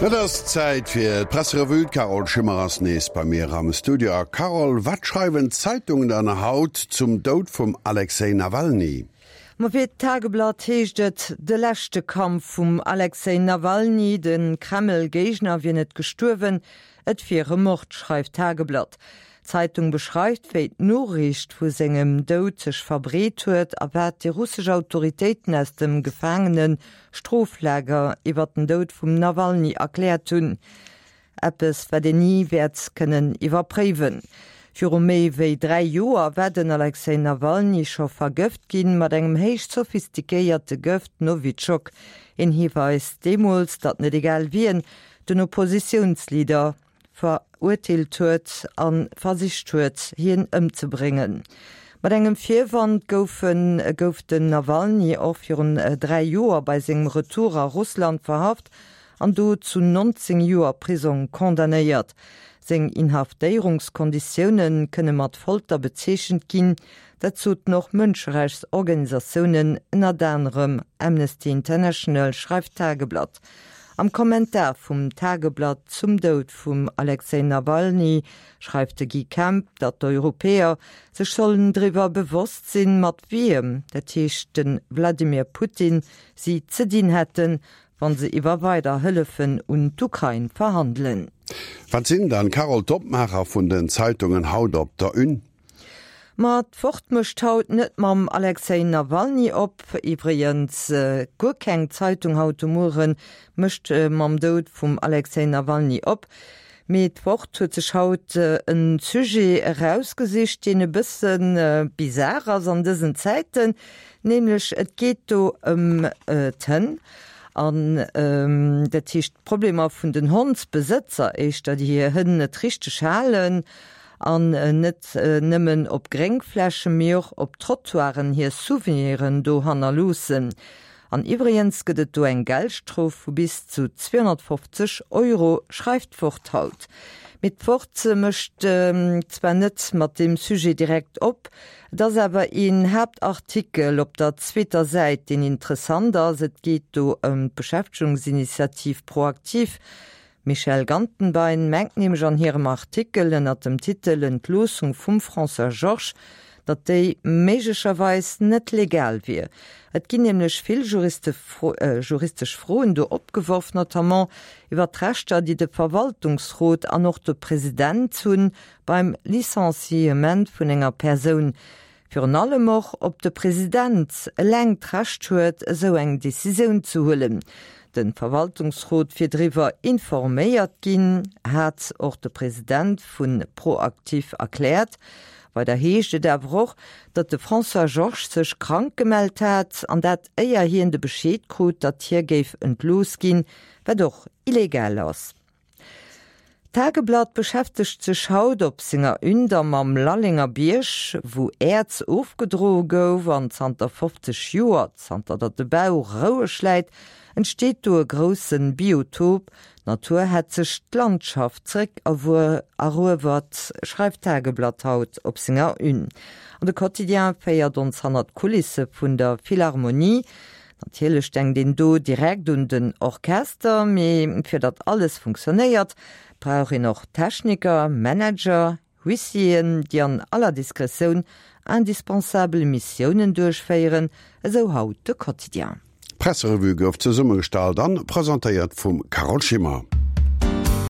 Et ass Zäit fir d'Presserevue. D'Carole Schimmer ass nees bei mir am Studio. A Carole, wat schreiwen d'Zeitungen dann haut zum Doud vum Alexej Nawalny? Ma fir d'Tageblatt heescht et, De leschte Kampf vum Alexej Nawalny, de Kreml-Géigner wier net gestuerwen, et wier e Mord, schreift d'Tageblatt. D'Zeitung beschreift, wéi d'Noriicht vu sengem Doud sech verbreet huet a wat déi russesch Autoritéiten aus dem Gefaangene-Stroflager iwwer den Doud vum Nawalny erkläert hunn. Eppes, wat een ni wäert kënnen iwwerpréiwen. Viru méi wéi 3 Joer war den Alexej Nawalny scho vergëft ginn, mat engem héich sophistiquéierte Gëft Nowitschok. Een Hiweis deemools, datt net egal wien den Oppositiounsleader verurteelt huet a versicht huet, hien ëmzebréngen. Mat engem Virwand goufen gouf den Nawalny och virun 3 Joer bei sengem Retour a Russland verhaft an do zu 19 Joer Prisong condamnéiert. Seng Inhaftéierungskonditioune kënne mat Folter bezeechent ginn, dat soten och Mënscherechtsorganisatiounen, ënnert anerem Amnesty International, schreift d'Tageblatt. Am Kommentar vum Tageblatt zum Doud vum Alexej Nawalny schreift de Guy Kemp, datt d'Europäer sech sollen driwwer bewosst sinn, mat wiem, dat heescht de Wladimir Putin, si ze dinn hätten, wann se iwwer weider Hëllefen un d'Ukrain verhandelen. Wat sinn dann, Carole, d'Opmaacher vun den Zeitungen haut op der Une? Ma d'Wort mécht haut net mam Alexej Nawalny op. Iwwregens, guer keng Zeitung haut de Muere mécht mam Doud vum Alexej Nawalny op. Mee d'Wort huet sech haut e Sujet erausgesicht, deen e bësse bizar ass an dësen Zäiten, nämlech et geet do ëm d'Hënn an dat heescht d'Problemer vun den Hondsbesëtzer éischter, déi hir Hënn net richteg halen an net nëmmen op Gréngflächen, mee och op Trottoiren hir Souveniren do hannerloossen. An iwwregens gëtt et do eng Geldstrof vu bis zu 250 Euro, schreift d'Wort haut. Mee d'Wort mécht zwar net mat deem Sujet direkt op, et ass awer een Haaptartikel op der zweeter Säit, deen interessant ass. Et geet do ëm d'Beschäftegungsinitiativ ProActif. D'Michèle Gantenbein mengt nämlech an hirem Artikel ënner dem Titel Entloossung vum François Georges, datt déi méiglecherweis net legal wier. Et ginn nämlech vill juristesch Froen do opgeworf, notamment iwwer d'Rechter, déi de Verwaltungsrot an och de President hunn beim Licenciement vun enger Persoun. Virun allem och, ob de President eleng d'Recht huet, esou eng Decisioun ze huelen. De Verwaltungsrot wier driwwer informéiert ginn, hat och de President vu ProActif erkläert. Weider heescht et awer och, datt de François Georges sech krank gemellt hat, an dat éier hien de Bescheed krut, datt hie géif entlooss ginn, wat och illegal ass. D'Tageblatt beschäftegt sech haut op senger Une da mam Lallenger Bierg, wou Äerz ofgedroe gouf an zanter 50 Joer, zanter datt de Bau roueg läit, entsteet do e grousse Biotop. D'Natur hätt sech d'Landschaft zeréck eruewert, schreift d'Tageblatt haut op senger Une. An de Quotidien féiert ons hannert d'Kulisse vun der Philharmonie. Natierlech denkt een do direkt un den Orchester, mee fir datt alles funktionéiert, brauch een och Techniker, Manager, Huissieren, déi an aller Diskretioun indispensabel Missiounen duerchféieren, esou haut de Quotidien. D'Presserevue gouf zesummegestallt an presentéiert vum Carole Schimmer.